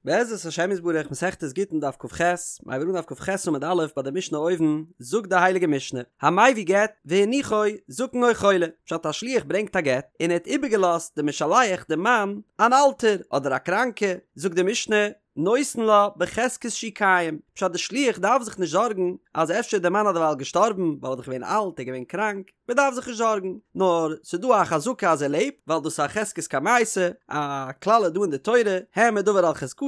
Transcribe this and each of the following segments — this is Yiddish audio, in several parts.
בעזרת השם יתברך מסכת גיטין דף כ"ח, מיר הייבן אן דף כ"ח עמוד א' ביי די משנה אויבן, זאגט די הייליגע משנה, המביא גט והניחו זקן או חולה, פשט א שליח ברענגט א גט און ער האט איבערגעלאזט די משלח די מאן אן אלטער אדער א קראנקע, זאגט די משנה, נותן לה בחזקת שהוא קיים, פשט די שליח דארף זיך נישט זארגן אז אפשר איז די מאן אדערווייל געשטארבן ווייל ער איז דאך געווען אלט ער איז געווען קראנק, מען דארף זיך נישט זארגן, נאר ס'איז דא א חזקה אז ער לעבט, ווייל דאס איז א חזקת קמייתא, א כלל איז דא אין די תורה, העמד דבר על חזקתו,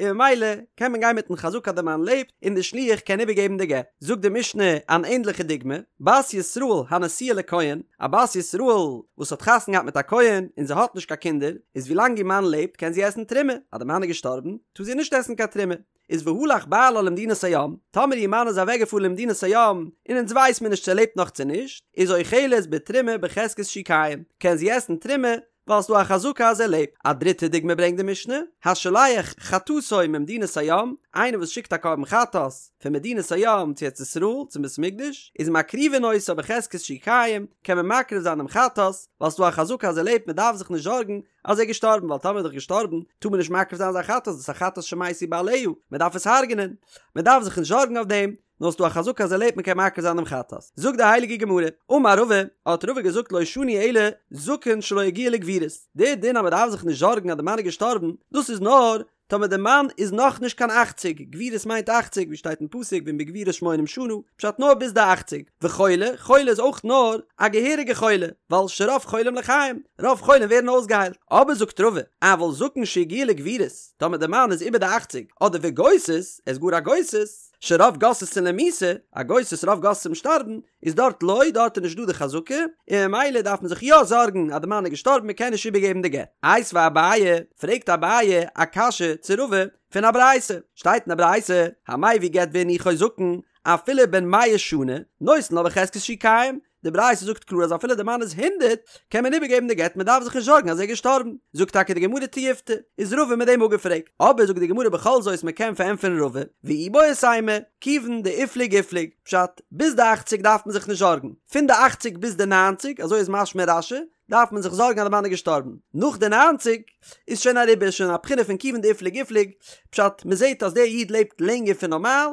און ממילא קען מען גיין מיטן חזקה אז די מאן לעבט, און די שליח קען איבערגעבן די גט. זאגט די משנה אן ענדליכע דוגמא, בת ישראל הנשואה לכהן, א בת ישראל וואס האט חתונה געהאט מיט א כהן און זי האט נישט קיין קינדער, איז ווילאנג איר מאן לעבט קען זי עסן תרומה, אז די מאן איז געשטארבן טאר זי נישט עסן קיין תרומה. איז והלך בעלה למדינת הים, טאמער איר מאן איז אוועק געפארן למדינת הים, און אונז ווייס מיר נישט צו ער לעבט נאך צו נישט, איז אוכלת בתרומה בחזקת שהוא קיים, קען זי עסן תרומה, ווייל ס'דא א חזקה אז ער לעבט. א דריטע דוגמא ברענגט די משנה, השולח חטאתו ממדינת הים, איינער וואס שיקט א קרבן חטאת פון מדינת הים צו ארץ ישראל צום בית המקדש, איז מקריבין אותה בחזקת שהוא קיים, קען מען מקריב זיין דעם חטאת, ווייל ס'דא א חזקה אז ער לעבט מען דארף זיך נישט זארגן אז ער איז געשטארבן ווייל טאמער איז דאך געשטארבן טאר מען נישט מקריב זיין זיין חטאת דאס איז א חטאת שמתו בעליה מען דארף עס הרג'נען מען דארף זיך נישט זארגן אויף דעם נאר ס'דא א חזקה אז ער לעבט מען קען מקריב זיין דעם חטאת זאגט די הייליגע גמרא אמר רבא האט רבא געזאגט לא שנו אלא זקן שלא הגיע לגבורות די דין אז מען דארף זיך נישט זארגן אז די מאן איז געשטארבן דאס איז נאר טאמער די מאן איז נאך נישט קיין אכציג, גבורות מיינט אכציג, ווי שטייט אין פסוק ואם בגבורות שמונים שנה, פשט נאר ביז די אכציג, וחולה, חולה איז אויך נאר א געהעריגע חולה, ווייל שרוב חולים לחיים, רוב חולים ווערן אויסגעהיילט, אבער זאגט רבא, אבל זקן שהגיע לגבורות, טאמער די מאן איז איבער די אכציג, אדער וגוסס, ער איז גאר א גוסס, שרוב גוססין למיתה, א גוסס רוב גוססים שטארבן, איז דארט לא, דארט איז נישט דא די חזקה, און ממילא דארף מען זיך יא זארגן אז די מאן איז געשטארבן מען קען נישט איבערגעבן די גט. איתיביה אביי, פרעגט אביי א קשיא צו רבא פון א ברייתא, שטייט אין א ברייתא, המביא גט והניחו זקן, אפילו בן מאה שנה, נותן לה בחזקת שהוא קיים, די ברייתא זאגט קלאר אז אפילו די מאן איז הונדרעט קען מען איבערגעבן די גט מען דארף זיך נישט זארגן אז ער איז געשטארבן, זאגט טאקע די גמרא תיובתא, איז רבא מיט דעם אפגעפרעגט, אבער זאגט די גמרא בכל זאת מען קען פארענטפערן רבא, ואיבעית אימא, כיוון דאיפליג איפליג, פשט, ביז די אכציג דארף מען זיך נישט זארגן, פון די אכציג ביז די ניינציג, אזוי איז משמע רש"י, דארף מען זיך זארגן אז די מאן איז געשטארבן, נאך די ניינציג איז שוין אריבער, איז שוין א בחינה פון כיוון דאיפליג איפליג, פשט, מען זעט אז דער איד לעבט לענגער פון נארמאל,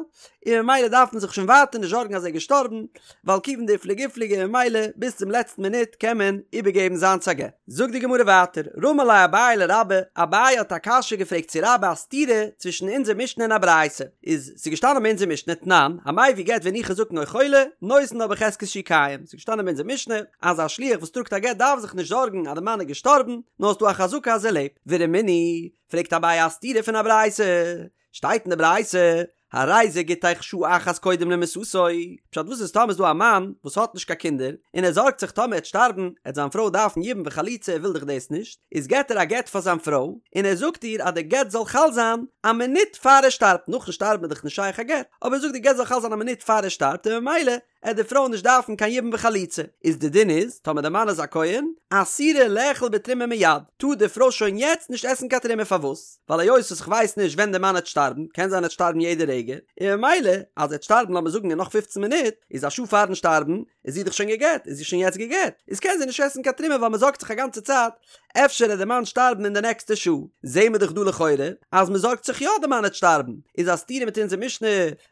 און ממילא דארף מען זיך שוין ווייטער נישט זארגן אז ער איז געשטארבן, ווייל כיוון דאיפליג איפליג און ממילא ביז צום לעצטן מינוט קען מען איבערגעבן זיינס א גט. זאגט די גמרא ווייטער, רמי ליה אביי לרבה, אביי האט א קשיא געפרעגט צו רבה א סתירה צווישן אונזער משנה און א ברייתא, איז ס'איז געשטאנען ביי אונזער משנה תנן, המביא גט והניחו זקן או חולה, נותן לה בחזקת שהוא קיים, ס'איז געשטאנען ביי אונזער משנה אז א שליח וואס טראגט א גט דארף זיך נישט זארגן אז די מאן איז געשטארבן, נאר ס'דא א חזקה אז ער לעבט, ורמינהי, פרעגט אביי א סתירה פון א ברייתא, שטייט אין די ברייתא, הרי זה גיטך שעה אחת קודם למיתתו, פשט וואס איז טאמער איז דא א מאן וואס האט נישט קיין קינדער, און ער זארגט זיך טאמער ער וועט שטארבן, עט זיין פרוי דארפן יבום וחליצה ער וויל דאך דאס נישט, איז געט ער א גט פאר זיין פרוי, און ער זאגט איר אז די גט זאל חל זיין א מינוט פאר ער שטארבט, נאכן שטארבן איז דאך נישט שייך א גט, אבער ער זאגט די גט זאל חל זיין א מינוט פאר ער שטארבט און ממילא עט די פרוי נישט דארפן קיין יבום וחליצה, איז די דין איז, טאמער די מאן איז א כהן, אסורה לאכול בתרומה מיד, טאר די פרוי שוין יעצט נישט עסן קיין תרומה פארוואס? ווייל היות וואס כ'ווייס נישט ווען די מאן עט שטארבן, קען זיין ער עט שטארבן יעדע רגע, און ממילא אז ער עט שטארבן לאמיר זאגן אין נאך פופצן מינוט, איז א שעה פארן שטארבן, איז זי דאך שוין גע'גט, איז זי שוין יעצט גע'גט, איז קען זי נישט עסן קיין תרומה ווייל מ'זארגט זיך א גאנצע צייט אפשר עט די מאן שטארבן אין די נעקסטע שעה, זעהן מיר דאך דא לכאורה אז מ'זארגט זיך יא די מאן עט שטארבן, איז א סתירה מיט אונזער משנה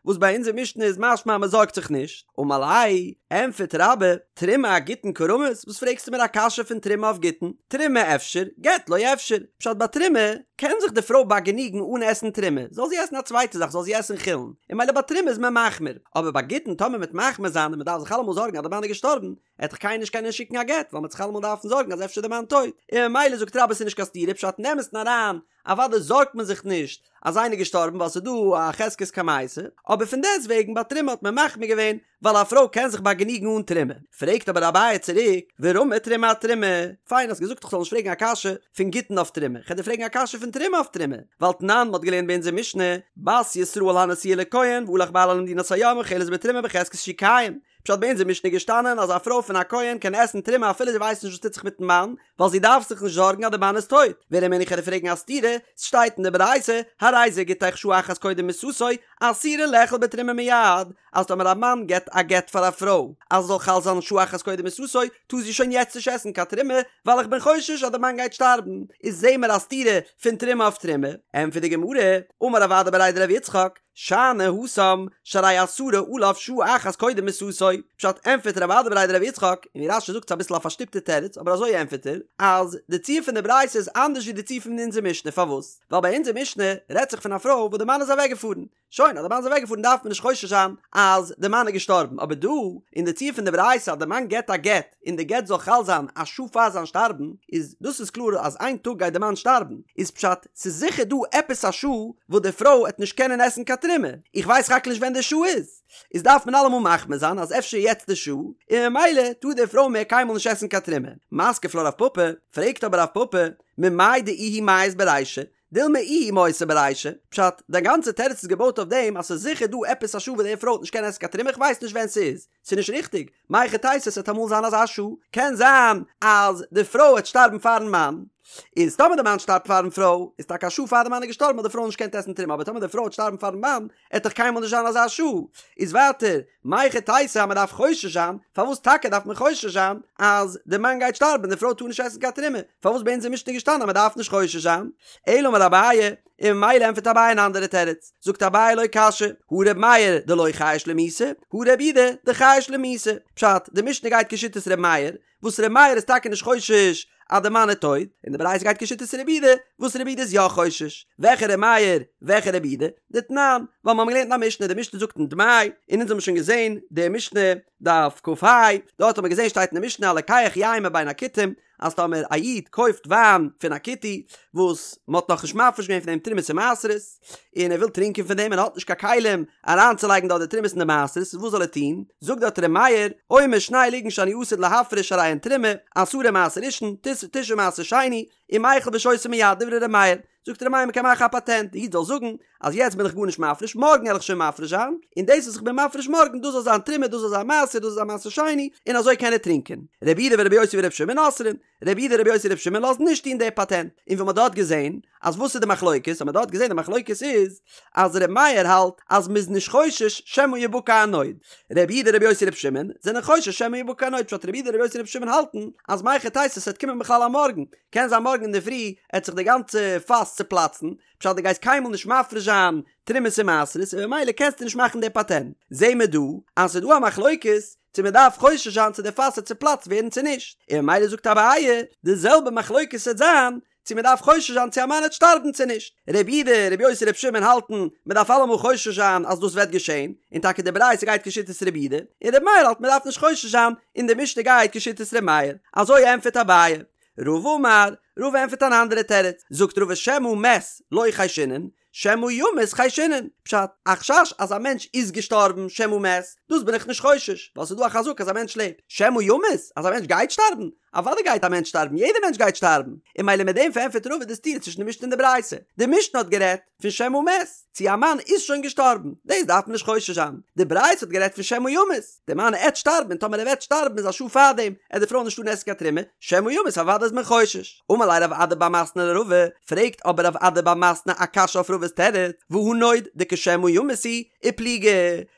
וואס ביי אונזער משנה איז משמע אז מ'זארגט זיך נישט, אמר ליה, ענטפערט רבה, תרומה אגיטין קא רמית, וואס פרעגסטו מיר א קשיא פון תרומה אויף גיטין, תרומה אפשר, גט לא אפשר, פשט ביי תרומה קען זיך די פרוי באגעניגן אן עסן תרומה, זאל זי עסן א צווייטע זאך, זאל זי עסן חולין, און ממילא ביי תרומה איז מען מחמיר, אבער ביי גיטין טאמער מ'וועט מחמיר זיין און מ'דארף זיך אלעמאל זארגן אז די מאן איז געשטארבן, עט דאך קיינער נישט קענען שיקן א גט, ווייל מ'עט זיך אלעמאל דארפן זארגן אז אפשר איז די מאן טויט, און ממילא זאגט רבה ס'איז נישט קיין סתירה, פשט אין אמת'ן אריין, אוודאי זארגט מען זיך נישט אז איינער איז געשטארבן ווייל ס'איז דא א חזקת קמייתא, אבער פון דעסט וועגן ביי תרומה האט מען מחמיר געווען ווייל א פרוי קען זיך באגעניגן אן תרומה. פרעגט אבער אביי צוריק, ורמי תרומה אתרומה, פיין האסט געזאגט איך זאל נישט פרעגן א קשיא פון גיטין אויף תרומה, כ'על דיר פרעגן א קשיא פון תרומה אויף תרומה, ווייל תנן מ'האט געלערנט ביי אונזער משנה, בת ישראל הנשואה לכהן והלך בעלה למדינת הים אוכלת בתרומה בחזקת שהוא קיים. פשט ביי אונזער משנה איז געשטאנען אז א פרוי פון א כהן קען עסן תרומה אפילו זי ווייסט נישט וואס טוט זיך מיטן מאן, ווייל זי דארף זיך נישט זארגן אז די מאן איז טויט. ורמינהו כ'וועל דיר פרעגן א סתירה, ס'שטייט אין די ברייתא, הרי זה גיטך שעה אחת קודם מיתתו, אסורה לאכול בתרומה מיד, אז טאמער א מאן געבט א גט פאר א פרוי אז עס זאל חל זיין שעה אחת קודם מיתתו, טאר זי שוין יעצט נישט עסן קיין תרומה, ווייל איך בין חושש אז די מאן גייט שטארבן. איז זעהן מיר א סתירה פון תרומה אויף תרומה. ענטפערט די גמרא, אמר רב אדא בריה דרב יצחק, שאני התם, שהרי אסרה עליו שעה אחת קודם מיתתו, פשט ענטפערט רב אדא בריה דרב יצחק, און ווי רש"י זאגט ס'איז אביסל א פארשטופטע תירוץ אבער אזוי ענטפערט ער, אז די ציור פון די ברייתא איז אנדערש ווי די ציור פון אונזער משנה, פארוואס? ווייל ביי אונזער משנה רעדט זיך פון א פרוי וואס די מאן איז אוועקגעפארן, שוין אז די מאן איז אוועקגעפארן דארף מען נישט חושש זיין אז די מאן איז געשטארבן, אבער דא אין די ציור פון די ברייתא אז די מאן געבט א גט און די גט זאל חל זיין א שעה פאר זיין שטארבן, איז דאס איז קלאר אז איין טאג גייט די מאן שטארבן, איז פשט ס'איז זיכער דא עפעס א שעה וואס די פרוי עט נישט קענען עסן קיין תרומה, איך ווייס רק נישט ווען די שעה איז, איז דארף מען אלעמאל מחמיר זיין אז אפשר יעצט די שעה, און ממילא טאר די פרוי מער קיינמאל נישט עסן קיין תרומה. מתקיף לה רב פפא, פרעגט אבער רב פפא, ממאי דאיהו מיית ברישא, דילמא איהי מותה ברישא, פשט, דיין גאנצע תירוץ איז געבויט אויף דעם אז ס'איז זיכער דא עפעס א שעה וואס די פרוי וועט נישט קענען עסן קיין תרומה איך ווייס נישט ווען ס'איז, ס'איז נישט ריכטיג, מהיכי תיתי ס'וועט אמאל זיין אזא שעה, קען זיין אז די פרוי וועט שטארבן פארן מאן, איז טאמער די מאן שטארבט פארן פרוי, איז טאקע א שעה פאר די מאן איז געשטארבן האט די פרוי נישט געקענט עסן תרומה אבער טאמער די פרוי וועט שטארבן פארן מאן, עט דאך קיינמאל נישט זיין אזא שעה, איז ווייטער, מהיכי תיתי אז מ'דארף חושש זיין, פארוואס טאקע דארף מען חושש זיין אז די מאן גייט שטארבן און די פרוי טאר נישט עסן קיין תרומה, פארוואס ביי אונזער משנה איז געשטאנען אז מ'דארף נישט חושש זיין? אלא אמר אביי, און ממילא ענטפערט אביי אן אנדערע תירוץ, זאגט אביי לא קשיא, הא ר' מאיר דלא חייש למיתה, הא ר' יהודה דחייש למיתה, פשט, די משנה גייט כשיטת ר' מאיר, וואס ר' מאיר איז טאקע נישט חושש אז די מאן איז טויט, און די ברייתא גייט כשיטת ר' יהודה, וואס ר' יהודה איז יא חושש. וועלכע ר' מאיר, וועלכע ר' יהודה? דתנן, ווייל מיר האבן געלערנט אין א משנה, די משנה זאגט אין דמאי, און אונז האבן שוין געזען די משנה דף כ"ה, דארט האבן מיר געזען שטייט אין די משנה הלוקח יין מבין הכותים, אז טאמער א איד קויפט וויין פון א כותי וואס מען האט נאכנישט מפריש געווען פון דעם תרומות און מעשרות, און ער וויל טרינקען פון דעם און ער האט נישט קיין כלים אריינצולייגן דארט די תרומות און די מעשרות, וואס זאל ער טון? זאגט דארט ר' מאיר, אומר שני לוגין שאני עתיד להפריש הרי הן תרומה, עשרה מעשר ראשון, תשעה מעשר שני, ומיחל ושותה מיד, דברי ר' מאיר. זאגט ר' מאיר מען קען מאכן א פאטענט, די איד זאל זאגן אז יעצט בין איך גארנישט מפריש, מארגן וועל איך שוין מפריש זיין, און דאס וואס איך בין מפריש מארגן דאס זאל זיין תרומה, דאס זאל זיין מעשר, דאס זאל זיין מעשר שני, און אזוי קען ער טרינקען. רבי יהודה ורבי יוסי ורבי שמעון אוסרין, רבי יהודה רבי יוסי רבי שמעון לאזן נישט טון די פאטענט, און ווי מ'האט דארט געזען אז וואס איז די מחלוקת, האט מען דארט געזען די מחלוקת איז אז רבי מאיר האלט אז מ'איז נישט חושש שמא יבקע הנוד, רבי יהודה רבי יוסי רבי שמעון זענען חושש שמא יבקע הנוד, פשט רבי יהודה רבי יוסי רבי שמעון האלטן אז מהיכי תיתי ס'וועט קומען בכלל א מארגן, קען זיין מארגן אינדערפרי עט זיך די גאנצע פאס צופלאצן, פשט דו גייסט קיינמאל נישט מפריש זיין תרומות און מעשרות און ממילא קענסטו נישט מאכן די פאטענט, זעהן מיר דא אז ס'איז דא א מחלוקת צו מען דארף חושש זיין צו די פאס וועט צופלאצט ווערן צו נישט, און ממילא זאגט אביי די זעלבע מחלוקת וועט זיין צו מען דארף חושש זיין צו א מאן וועט שטארבן צו נישט. רבי יהודה, רבי יוסי, רבי שמעון האלטן מען דארף אלעמאל חושש זיין אז דאס וועט געשען, און טאקע די ברייתא גייט כשיטת רבי יהודה, און רבי מאיר האלט מען דארף נישט חושש זיין, און די משנה גייט כשיטת רבי מאיר. אזוי ענטפערט אביי. רבא אמר, רבא ענטפערט אן אנדערע תירוץ, זאגט רבא שמא מת לא חיישינן, שמא ימות חיישינן, פשט, א חשש אז א מענטש איז געשטארבן שמא מת, דאס בין איך נישט חושש, ווייל ס'איז דא א חזקה אז א מענטש לעבט, שמא ימות, אז א מענטש גייט שטארבן, אוודאי גייט א מענטש שטארבן, יעדער מענטש גייט שטארבן, און ממילא מיט דעם פארענטפערט רבא די סתירה צווישן די משנה און די ברייתא, די משנה האט גערעדט פון שמא מת, צו א מאן איז שוין געשטארבן, דאס דארף מען נישט חושש זיין, די ברייתא האט גערעדט פון שמא ימות, די מאן עט שטארבן און טאמער ער וועט שטארבן איז א שעה פארדעם עט די פרוי נישט טארן עסן קיין תרומה, שמא ימות אוודאי איז מען חושש. אמר ליה רב אדא בר מתנה לרבא, פרעגט אבער רב אדא בר מתנה א קשיא אויף רבא'ס תירוץ, והא נוד דכשמא ימות הוא, ופליגי,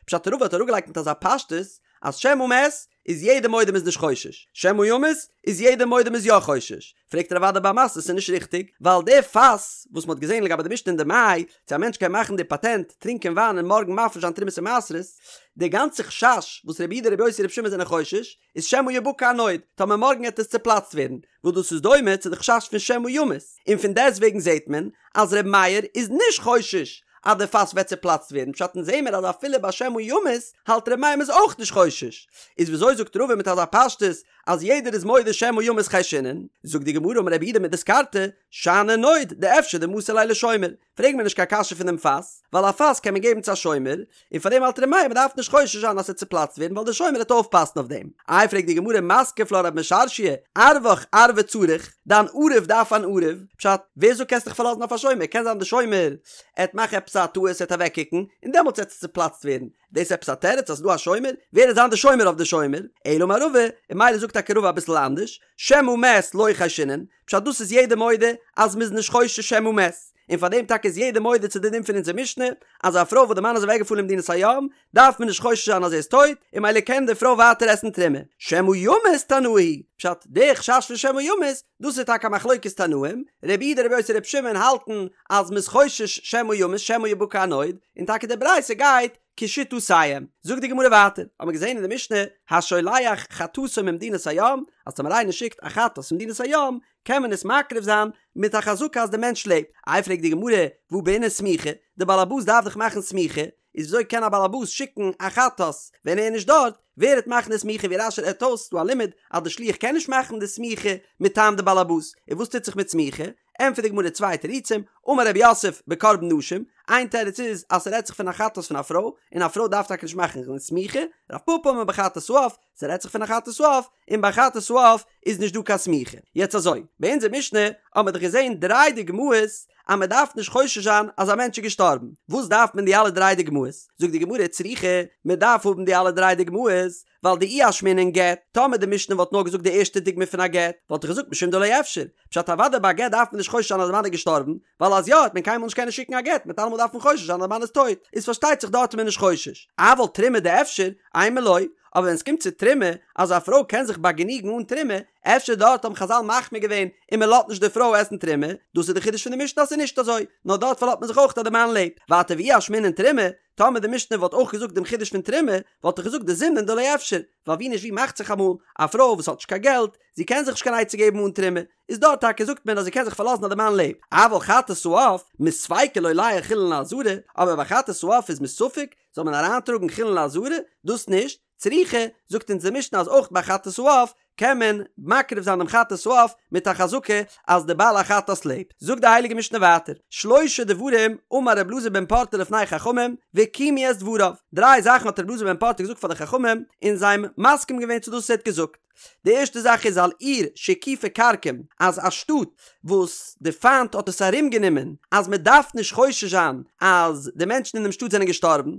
פשט רבא האט אראפגעלייגט מיט אזא פשטות אז שמא מת איז יעדער מודה מ'איז נישט חושש, שמא ימות איז יעדער מודה מ'איז יא חושש, פרעגט רב אדא בר מתנה ס'איז נישט ריכטיג, ווייל די פאס וואס מ'האט געזען לגבי די משנה אין דמאי, צו א מענטש קען מאכן די פאטענט, טרינקען וויין און מארגן מפריש זיין תרומות און מעשרות, די גאנצע חשש וואס רבי יהודה רבי יוסי רבי שמעון זענען חושש, איז שמא יבקע הנוד, טאמער מארגן עט עס צופלאצט ווערן, וואס דאס איז דומה צו די חשש פון שמא ימות, און פון דעסטוועגן זעט מען אז ר' מאיר איז נישט חושש אז די פאס וועט צופלאצט ווערן, פשט אונז זעמער אז אפילו ביי שמא ימות האלט ר' מאיר מ'איז אויך נישט חושש, איז וויאזוי זאגט רבא מיט אזא פשטות אז יעדער איז מודה שמא ימות חיישינן? זאגט די גמרא אמר רב יהודה מדיסקרתא, שאני נוד דאפשר דמסר ליה לשומר, פרעג מיר נישט קיין קשיא פון דעם פאס, ווייל א פאס קען מען געבן צו א שומר, און פאר דעם האלט ר' מאיר מ'דארף נישט חושש זיין אז ס'וועט צופלאצט ווערן ווייל דער שומר וועט אויפפאסן אויף דעם. איי פרעגט די גמרא מתקיף לה רב משרשיא, ערבך ערבא צריך, דיין ערב דארף אן ערב, פשט, ווער זאגט קענסט דיך פארלאזן אויף א שומר, קען זיין די שומר עט מאכן עפעס א טעות עט אוועקקוקן, און דעמאלטס עט עס צופלאצט ווערן. דאס איז עפעס א תירוץ אז ס'איז דא א שומר? ווער וועט זיין די שומר אויף די שומר? אלא אמר רבא, און ממילא זאגט טאקע רבא אביסל אנדערש, שמא מת לא חיישינן, פשט דאס איז יעדער מודה אז מ'איז נישט חושש שמא מת, און פאר דעם טאקע איז יעדער מודה צו די דין פון אונזער משנה, אז א פרוי וואס די מאן איז אוועקגעפארן למדינת הים, דארף מען נישט חושש זיין אז ער איז טויט, און ממילא קען די פרוי ווייטער עסן תרומה. שמא ימות תנאי היא, פשט, די חשש פון שמא ימות, דאס איז טאקע א מחלוקת תנאים, רבי יהודה רבי יוסי רבי שמעון האלטן אז מ'איז חושש שמא ימות שמא יבקע הנוד, און טאקע די ברייתא גייט כשיטותיהם. זאגט די גמרא ווייטער, האט מען געזען אין די משנה, השולח חטאתו ממדינת הים, אז טאמער איינער שיקט א חטאת פון מדינת הים, קען מען עס מקריב זיין מיט א חזקה אז די מענטש לעבט. איי פרעגט די גמרא, והא בעינן סמיכה, די בעל הבית דארף דאך מאכן סמיכה, איז וויאזוי קען א בעל הבית שיקן א חטאת ווען ער איז נישט דארט, ווער וועט מאכן די סמיכה ווי רש"י רעדט אויס ס'דא א לימוד אז די שליח קען נישט מאכן די סמיכה מטעם די בעל הבית, און וואס טוט זיך מיט סמיכה? ענטפערט די גמרא צוויי תירוצים, אמר רב יוסף בקרבן נשים, איין תירוץ איז אז ס'רעדט זיך פון א חטאת פון א פרוי, און א פרוי דארף טאקע נישט מאכן קיין סמיכה, רב פפא אמר בחטאת העוף, ס'רעדט זיך פון א חטאת העוף, און ביי חטאת העוף איז נישט דא קיין סמיכה. יעצט אזוי, ביי אונזער משנה האבן מיר דאך געזען דריי דוגמאות אז מען דארף נישט חושש זיין אז א מענטש איז געשטארבן, וואס דארף מען די אלע דריי דוגמאות? זאגט די גמרא צריכא, מען דארף האבן די אלע דריי דוגמאות, ווייל דאי אשמעינן גט, טאמער די משנה וואלט נאר געזאגט די ערשטע דוגמא פון א גט, וואלט איך געזאגט משום דלא אפשר, פשט אוודאי ביי א גט דארף מען נישט חושש זיין אז די מאן איז געשטארבן, ווייל אז יא וועט מען קיינמאל נישט קענען שיקן א גט, מען וועט אלעמאל דארפן חושש זיין אז די מאן איז טויט, איז פארשטייט זיך דארט איז מען נישט חושש. אבל תרומה דאפשר, אימא לא, אבער ווען עס קומט צו תרומה, אז א פרוי קען זיך באגעניגן אן תרומה, אפשר דארט האבן חז"ל מחמיר געווען און מען לאזט נישט די פרוי עסן תרומה, דאס איז די חידוש פון די משנה אז ס'איז נישט אזוי, נאר דארט פארלאזט מען זיך אויך אז די מאן לעבט. ווייטער ואי אשמעינן תרומה, טאמער די משנה וואלט אויך געזאגט דעם חידוש פון תרומה, וואלט איך געזאגט דזימנין דלא אפשר, ווייל ווי נישט ווי מאכט זיך אמאל, א פרוי וואס האט נישט קיין געלט, זי קען זיך נישט קיין עצה געבן אן תרומה, איז דארט טאקע זאגט מען אז זי קען זיך פארלאזן אז די מאן לעבט, אבל חטאת העוף, מספיקא לולייהו חולין לעזרה, אבער ביי חטאת העוף איז מספק, זאל מען אריינטראגן חולין לעזרה? דאס נישט, צריכא, זאגט אונז די משנה אז אויך ביי חטאת העוף קען מען מקריב זיין דעם חטאת העוף מיט א חזקה אז די בעל החטאת לעבט. זאגט די הייליגע משנה ווייטער, שלשה דברים אמר רבי אלעזר בן פרטא לפני חכמים וקיימו את דבריו, דריי זאכן האט רבי אלעזר בן פרטא געזאגט פאר די חכמים און זיי האבן מסכים געווען צו דאס וואס ער האט געזאגט. די ערשטע זאך איז על עיר שהקיפה כרקום, אז א שטאט וואס די פיינט האט עס ארום גענומען, אז מען דארף נישט חושש זיין אז די מענטשן אין דעם שטאט זענען געשטארבן.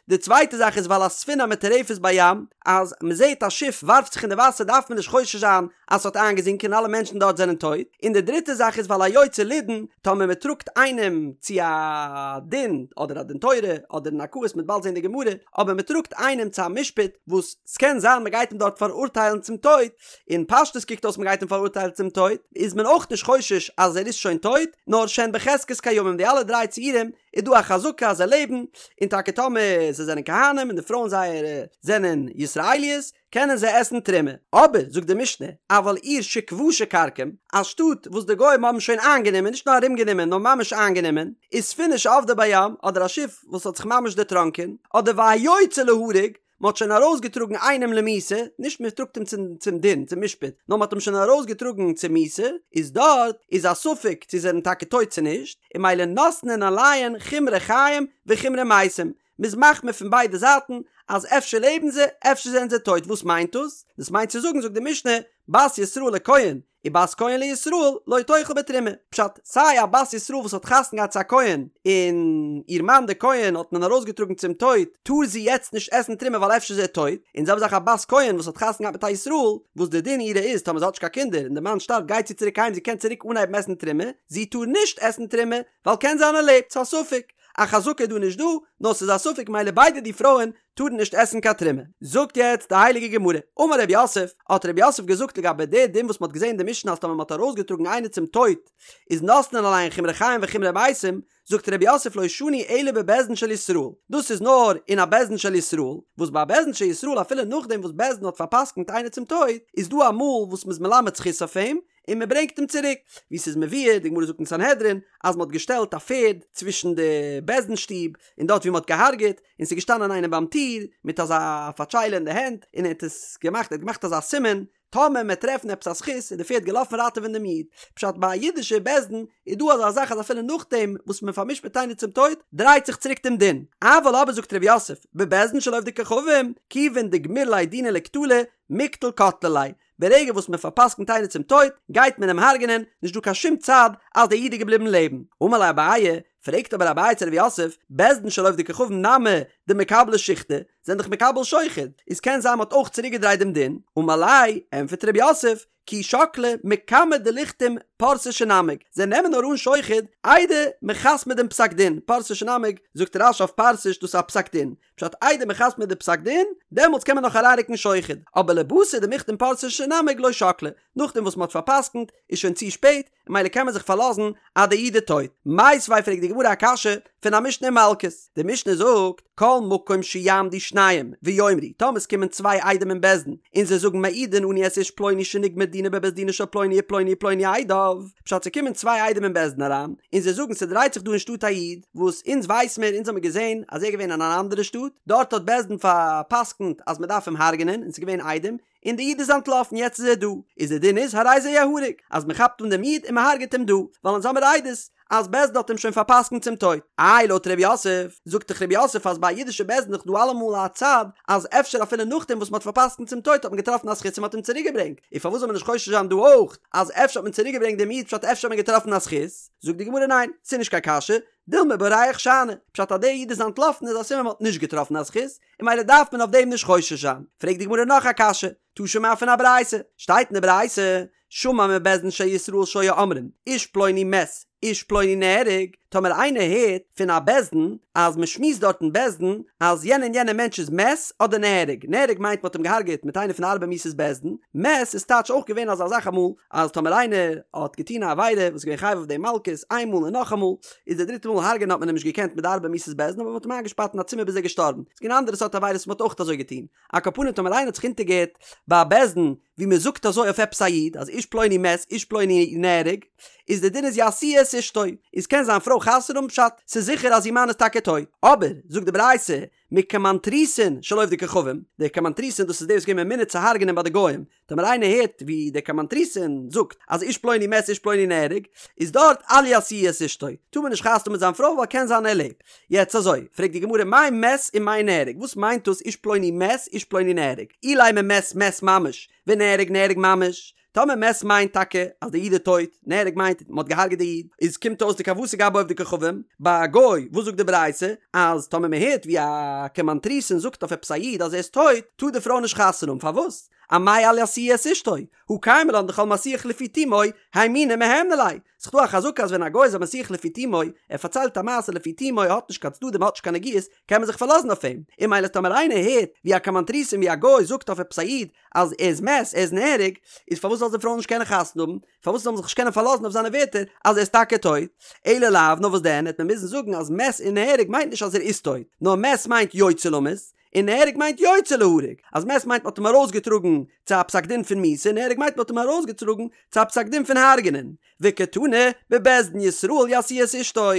די צווייטע זאך איז ועל הספינה המטורפת בים, אז מען זעט א שיף ווארפט זיך אין די וואסער דארף מען נישט חושש זיין אז ס'האט איינגעזינקען און אלע מענטשן דארט זענען טויט. און די דריטע זאך איז ועל היוצא לידון, טאמער מען טראגט איינעם צו א דין, אדער א דין תורה, אדער אין ערכאות, מ'וועט באלד זען די גמרא, אבער מען טראגט איינעם צו א משפט וואס ס'קען זיין מען גייט אים דארט פאראורטיילן צום טויט, אין פשטות קוקט אויס מען גייט אים פאראורטיילן צום טויט, איז מען אויך נישט חושש אז ער איז שוין טויט, נאר שהן בחזקת קיימים, די אלע דריי ציורים איז דא א חזקה אז זיי לעבן, און טאקע טאמער זיי זענען כהנים און די פרויען זייערע זענען ישראליות, קענען זיי עסן תרומה. אבער, זאגט די משנה, אבל עיר שכבשה כרקום, א שטאט וואס די גוים האבן שוין איינגענומען, נישט נאר ארומגענומען נאר ממש איינגענומען, וספינה שאבדה בים, אדער א שיף וואס האט זיך ממש דערטראנקען, אדער והיוצא להרוג, מען האט שוין ארויסגעטראגן איינעם למיתה, נישט מען טראגט אים צום דין, צום משפט, נאר מען האט אים שוין ארויסגעטראגן צו מיתה, איז דארט איז א ספק צו זיי זענען טאקע טויט צו נישט, און ממילא נותנין עליהן חומרי חיים וחומרי מתים, מ'איז מחמיר פון ביידע זייטן אז אפשר לעבן זיי, אפשר זענען זיי טויט, וואס מיינט דאס? דאס מיינט צו זאגן זאגט די משנה, בת ישראל לכהן ובת כהן לישראל לא תאכל בתרומה, פשט, סיי א בת ישראל וואס האט חתונה געהאט צו א כהן און איר מאן דער כהן האט מען ארויסגעטראגן צום טויט, טאר זי יעצט נישט עסן תרומה ווייל אפשר איז ער טויט, און זעלבע זאך א בת כהן וואס האט חתונה געהאט מיט א ישראל, וואס די דין אירע איז טאמער זי האט נישט קיין קינדער און די מאן שטארבט גייט זי צוריק אהיים זי קען צוריק אנהייבן עסן תרומה, זי טאר נישט עסן תרומה ווייל קען זיין ער לעבט, ס'איז א ספק. א חזקה איז דא נישט דא, נאר ס'איז א ספק מילא ביידע די פרויען טארן נישט עסן קיין תרומה. זאגט יעצט די הייליגע גמרא, אמר רב יוסף, האט רב יוסף געזאגט לגבי די דין וואס מ'האט געזען אין די משנה אז טאמער מ'האט ארויסגעטראגן איינער צום טויט איז נותנין עליהן חומרי חיים וחומרי מתים, זאגט רב יוסף לא שנו אלא בבית דין של ישראל, דאס איז נאר אין א בית דין של ישראל, וואס ביי א בית דין של ישראל אפילו נאכדעם וואס בית דין האט פאר'פסק'נט איינער צום טויט, איז דא אמאל וואס מ'איז מלמד זכות אויף אים, און מען ברענגט אים צוריק, ווי ס'איז מבואר, די גמרא זאגט אין סנהדרין, אז מען האט געשטעלט א פערד צווישן די בית דין שטוב און דארט ווי מען האט געהארגעט, און ס'איז געשטאנען איינער ביים טיר מיט אזא פאטשיילע אין די הענט, און ער האט עס געמאכט, ער האט געמאכט אזא סימן, טאמער מען וועט טרעפן עפעס א זכות, איז די פערד געלאפן ראטעווען דעם איד. פשט, ביי א אידישע בית דין איז דא אזא זאך אז אפילו נאכדעם וואס מען פאר'משפט איינער צום טויט, דרייט זיך צוריק דעם דין. אבל אבער זאגט ר' יוסף, בבית דין של עובדי כוכבים, כיוון דגמיר ליה דינא לקטלא, מיקטל קטלי ליה, ברגע וואס מען פארפסקנט איינער צום טויט, גייט מען אים הרג'נען, נישט דא קיין שום צד אז דער איד איז געבליבן לעבן. אמר ליה אביי, פרעגט אבער אביי צו רב יוסף, בית דין של עובדי כוכבים נמי דמקבלי שיחדא, זענען דאך מקבל שוחד, איז קען זיין מ'האט אויך צוריקגעדרייט דעם דין, אמר ליה, ענטפערט רב יוסף, כי שקלי מקמי דליחתום פרסה שנמג, זיי נעמען נאר אן שוחד איידער מ'חתמ'ט דעם פסק דין, פרסה שנמג, זאגט רש"י אויף פרסה דאס איז א פסק דין, פשט איידער מ'חתמ'ט די פסק דין, דעמאלטס קען מען נאך אריינרוקן שוחד, אבער לבתר דמיחתם פרסה שנמג לא שקלי, נאכדעם וואס מ'האט פאר'פסק'נט איז שוין צו שפעט, ממילא קען מען זיך פארלאזן אז די איד איז טויט. מיתיבי פרעגט די גמרא א קשיא פון א משנה אין מלקות, די משנה זאגט, כל מקום שיעמדו שניים ויאמרו, טאמער עס קומען צוויי עדים אין בית דין און זיי זאגן מעידין אנו את איש פלוני שנגמר דינו בבית דינו של פלוני ופלוני ופלוני עדיו, פשט ס'קומען צוויי עדים אין בית דין אריין און זיי זאגן ס'דרייט זיך דא אין שטאט א איד וואס אונז ווייס מיר אונז האמיר געזען אז ער איז געווען אין אן אנדערע שטאט דארט האט בית דין פאר'פסק'נט אז מ'דארף אים הרג'נען און ס'איז געווען עדים און די איד איז אנטלאפן יעצט איז ער דא, איז די דין איז הרי זה יהרג, אז מען כאפט אן דעם איד און מען הרג'עט אים דא, ווייל אונז האמיר עדות אז בית דין האט אים שוין פארפסקנט צום טויט. איי לויט ר' יוסף, זאגט דאך ר' יוסף אז ביי א אידישע בית דין איז דאך דא אלעמאל א צד אז אפשר אפילו נאכדעם וואס מען האט פארפסקנט צום טויט האט מען געטראפן א זכות און מען האט אים צוריק געברענגט, און פארוואס זאל מען נישט חושש זיין דא אויך אז אפשר האט מען צוריק געברענגט דעם איד פשט אפשר האט מען געטראפן א זכות? זאגט די גמרא ניין, ס'איז נישט קיין קשיא, דילמא בורח שאני, פשט אז דער איד איז אנטלאפן איז א סימן מען האט נישט געטראפן א זכות, און ממילא דארף מען אויף דעם נישט חושש זיין. פרעגט די גמרא נאך א קשיא, תא שמע פון א ברייתא, שטייט אין די ברייתא, שמע מבית דין של ישראל שהיו אומרים, איש פלוני מת, איש פלוני נהרג, טאמער איינער הערט פון א בית דין אז מען שמועסט דארט אין בית דין אז יענער און יענער מענטש איז מת אדער נהרג, נהרג מיינט מען האט אים געהארגעט מיט איינע פון די ארבע מיתות בית דין, מת איז טייטש אויך געווען אזא זאך אמאל אז טאמער איינער האט געטון א עבירה וואס איז געווען חייב אויף דעם מלקות איין מאל און נאכאמאל, איז די דריטע מאל הרג'ענען האט מען אים נישט געקענט מיט די ארבע מיתות בית דין אבער מען האט אים איינגעשפארט אין א צימער ביז ער איז געשטארבן. ס'איז געווען אנדערע סארט עבירות וואס מען האט אויך אזוי געטון. על כל פנים טאמער איינער האט זיך אונטערגעהערט ביי א בית דין ווי מען זאגט אזוי אויף עפעס א איד אז איש פלוני מת איש פלוני נהרג איז די דין איז ישיאו את אשתו איז קען זיין פרוי חתונה האבן פשט ס'איז זיכער אז איר מאן איז טאקע טויט אבער זאגט די ברייתא מקומנטריסין של עובדי כוכבים דער קומנטריסין דאס איז דער וואס איז געווען ממונה צו הרג'נען ביי די גוים טאמער איינער הערט ווי דער קומנטריסין זאגט אז איש פלוני מת איש פלוני נהרג, איז דארט אל ישיאו את אשתו, טאר מען נישט חתונה האבן מיט זיין פרוי ווייל קען זיין ער לעבט. יעצט אזוי, פרעגט די גמרא מאי מת ומאי נהרג, וואס מיינט דאס איש פלוני מת איש פלוני נהרג, אילימא מת מת ממש, ונהרג נהרג ממש, טאמער מת מיינט טאקע אז די איד איז טויט, נהרג מיינט מען האט געהארגעט די איד, איז קומט אויס דכוותיה גבי עובדי כוכבים, ביי א גוי, וואס זאגט די ברייתא? אז טאמער מען הערט ווי א קומנטריסין זאגט אויף עפעס א איד אז ער איז טויט, טאר די פרוי נישט חתונה האבן, פארוואס? אמאי אל ישיאו את אשתו, הא קיימא לן דכל מסיח לפי תומו, הימוני מהימני ליה. ס'איז דא א חזקה אז ווען א גוי איז א מסיח לפי תומו, ער פארציילט א מעשה לפי תומו, ער האט נישט קיין צדדים, ער האט נישט קיין נגיעות, קען מען זיך פארלאזן אויף אים. און ממילא טאמער איינער הערט ווי א קומנטריסין ווי א גוי זאגט אויף עפעס א איד אז ער איז מת, ער איז נהרג, איז פארוואס זאל די פרוי נישט קענען חתונה האבן? פארוואס זאל מען זיך נישט קענען פארלאזן אויף זיינע ווערטער אז ער איז טאקע טויט? אלא לאו, נאר וואס דען, העט מען מוזן זאגן אז מת און נהרג מיינט נישט אז ער איז טויט, נאר מת מיינט יוצא למות, און נהרג מיינט יוצא להרג, אז מת מיינט מ'האט אים ארויסגעטראגן צו א פסק דין פון מיתה, נהרג מיינט מ'האט אים ארויסגעטראגן צו א פסק דין פון הרג'נען. וקתני, בבית דין ישראל ישיאו את אשתו,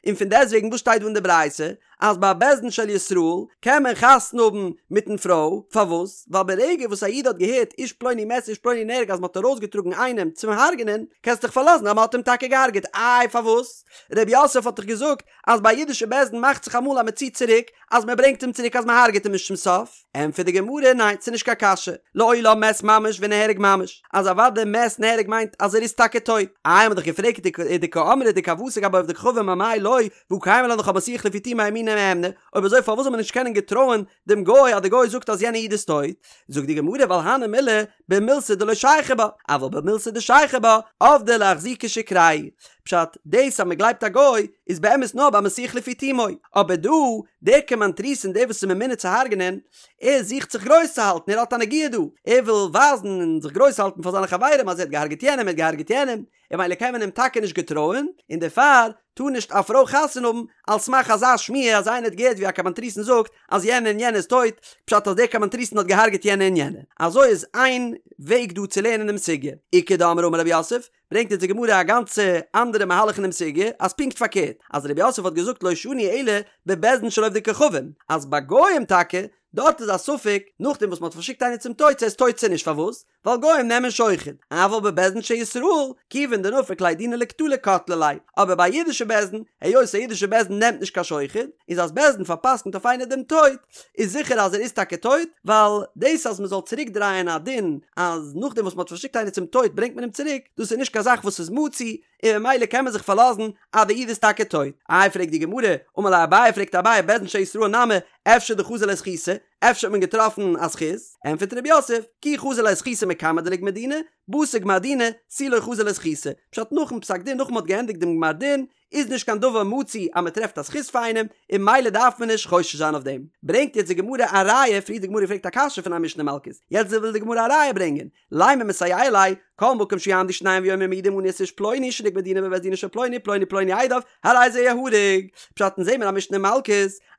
און פון דעסטוועגן וואס שטייט דא אין די ברייתא אז ביי א בית דין של ישראל קען מען חתונה האבן מיטן פרוי, פארוואס? ווייל ברגע וואס א איד האט געהערט איש פלוני מת איש פלוני נהרג אז מ'האט ארויסגעטראגן איינעם צום הרג'נען, קענסט דיך פארלאזן אז מ'האט אים טאקע געהרג'עט, איי פארוואס? ר' יוסף האט דאך געזאגט אז ביי א אידישע בית דין מאכט זיך אמאל אז מ'ציט צוריק, אז מען ברענגט אים צוריק אז מען הרג'עט אים נישט צום סוף? ענטפערט די גמרא, ניין, ס'איז נישט קיין קשיא, לעולם מת ממש ונהרג ממש, אז אוודאי מת נהרג מיינט אז ער איז טאקע טויט, איי האט מען דאך געפרעגט ודקאמרת דכוותיה גבי עובדי כוכבים אמאי לא, והא קיימא לן דכל מסיח לפי תומו הימוני מהימני, אויב אזוי פארוואס זאל מען נישט קענען געטרויען דעם גוי אז די גוי זאגט אז יענע איד איז טויט? זאגט די גמרא ווייל הני מילי במילתא דלא שייכי בה, אבל במילתא דשייכי בה, עבדי לאחזוקי שיקרייהו. פשט, דאס אז מען גלייבט א גוי איז באמת נאר ביי מסיח לפי תומו, אבער דא, דער קומנטריסין דער וואס איז ממונה צו הרג'נען, ער זוכט זיך גרויס צו האלטן, ער האט א נגיעה דא, ער וויל ווייזן און זיך גרויס האלטן פאר זיינע חברים אז ער האט געהארגעט יענעם, ער האט געהארגעט יענעם, און ממילא קען מען אים טאקע נישט געטרויען, און דערפאר טאר נישט א פרוי חתונה האבן על סמך אזא שמועה אז איינער האט געהערט ווי א קומנטריסין זאגט אז יענער און יענער איז טויט, פשט אז דער קומנטריסין האט געהארגעט יענער און יענער. אזוי איז איין וועג דא צו לערנען דעם סוגיא. איכא דאמרי אמר רב יוסף, ברענגט אונז די גמרא א גאנצע אנדערע מהלך אינעם סוגיא, אז פונקט פארקערט, אז רב יוסף האט געזאגט לא שנו אלא בבית דין של עובדי כוכבים, אז ביי גוים טאקע, דארט איז א ספק, נאכדעם וואס מען האט פארשיקט איינער צום טויט צו ער איז טויט צו נישט, פארוואס? ווייל גוים נעמען שוחד, אבל בבית דין של ישראל, כיוון דנפיק ליה דינא לקטלא קטלי ליה, אבער ביי א אידישע בית דין, היות א אידישע בית דין נעמט נישט קיין שוחד, איז אז בית דין פארפסקנט אויף איינער דעם טויט, איז זיכער אז ער איז טאקע טויט, ווייל דאס אז מען זאל צוריק דרייען א דין אז נאכדעם וואס מען האט פארשיקט איינער צום טויט ברענגט מען אים צוריק, דאס איז נישט קיין זאך וואס איז מצוי, און ממילא קען מען זיך פארלאזן אז די איד איז טאקע טויט. איי פרעגט די גמרא, אמר ליה אביי פרעגט אביי בית דין של ישראל נמי, אפשר דחזי ליה זכותא, אפשר האט מען געטראפן א זכות? ענטפערט רב יוסף, כי חזי ליה זכותא מקמי דליגמר דינא, בתר גמר דינא, תו לא חזי ליה זכותא. פשט נאכן פסק דין נאכן מ'האט געענדיגט דעם גמר דין, איז נישט קיין דבר מצוי אז מ'טרעפט א זכות פאר איינעם, און ממילא דארף מען נישט חושש זיין אויף דעם. ברענגט יעצט די גמרא א ראיה, פריער די גמרא געפרעגט א קשיא פון א משנה מלקות, יעצט וויל די גמרא א ראיה ברענגען, לימא מסייע ליה, כל מקום שיעמדו שניים ויאמרו מעידים אנו את איש פלוני שנגמר דינו בבית דינו של פלוני פלוני פלוני עדיו, הרי זה יהרג. פשט אונז זעמיר א משנה מלקות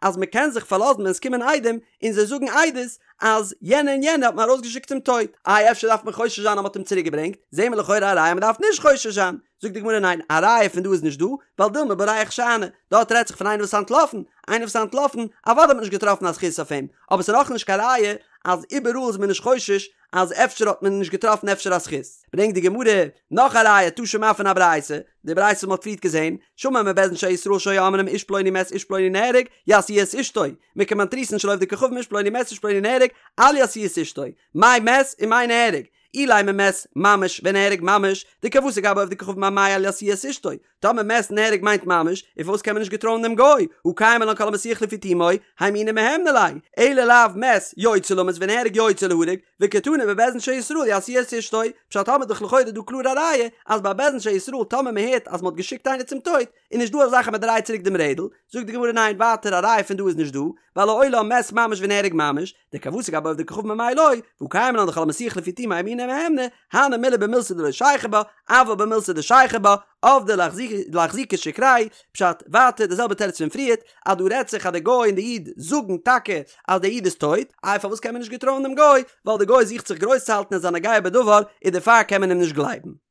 אז מען קען זיך פארלאזן ווען עס קומען עדים און זיי זאגן עדות אז יענע און יענע האט מען ארויסגעשיקט צום טויט, איי אפשר דארף מען חושש זיין אז מען האט אים צוריק געברענגט, זעמיר לכאורה א ראיה מען דארף נישט חושש זיין, זאגט די גמרא ניין א ראיה פון דא איז נישט דא, ווייל דילמא בורח שאני, דארט רעדט זיך פון איינער וואס איז אנטלאפן, איינער וואס איז אנטלאפן, אוודאי האט מען נישט געטראפן א זכות אויף אים, אבער ס'איז נאכנישט קיין ראיה אז איבעראל איז מען נישט חושש אז אפשר האט מען נישט געטראפן אפשר א זכות. ברענגט די גמרא נאך א ראיה תא שמע פון א ברייתא, די ברייתא וואס מ'האט פריערט געזען, שמע מבית דין של ישראל שהיו אומרים איש פלוני מת איש פלוני נהרג, ישיאו את אשתו, מקומנטריסין של עובדי כוכבים איש פלוני מת איש פלוני נהרג, אל ישיאו את אשתו, מאי מת ומאי נהרג, אילימא מת ממש ונהרג ממש, דכוותיה גבי עובדי כוכבים אמאי אל ישיאו את אשתו, טאמער מת נהרג מיינט ממש, און פארוואס קען מען נישט געטרויען דעם גוי, הא קיימא לן כל המסיח לפי תומו, הימוני מהימני ליה, אלא לאו מת יוצא למות ונהרג יוצא להרג, וקתני בבית דין של ישראל ישיאו את אשתו, פשט האמיר דאך לכאורה דא קלאר א ראיה אז ביי בית דין של ישראל טאמער מען הערט אז מען האט געשיקט איינער צום טויט, איז נישט דא אזא זאך אז מען דרייט צוריק דעם רעדל, זאגט די גמרא ניין ווייטער א ראיה פון דא איז נישט דא, ווייל לעולם מת ממש ונהרג ממש, דכוותיה גבי עובדי כוכבים אמאי לא, והא קיימא לן דכל המסיח לפי תומו הימוני מהימני, הני מילי במילתא דלא שייכא בה, אבל במילתא דשייכא בה, עבדי לאחזוקי שיקרייהו, פשט, ווייטער די זעלבע תירוץ פון פריערט, אז דא רעדט זיך אז די גוי און די איד זאגן טאקע אז די איד איז טויט, איי פארוואס קען מען נישט געטרויען דעם גוי, ווייל די גוי זוכט זיך גרויס צו האלטן און איז א נוגע בדבר, און דערפאר קען מען אים נישט גלייבן.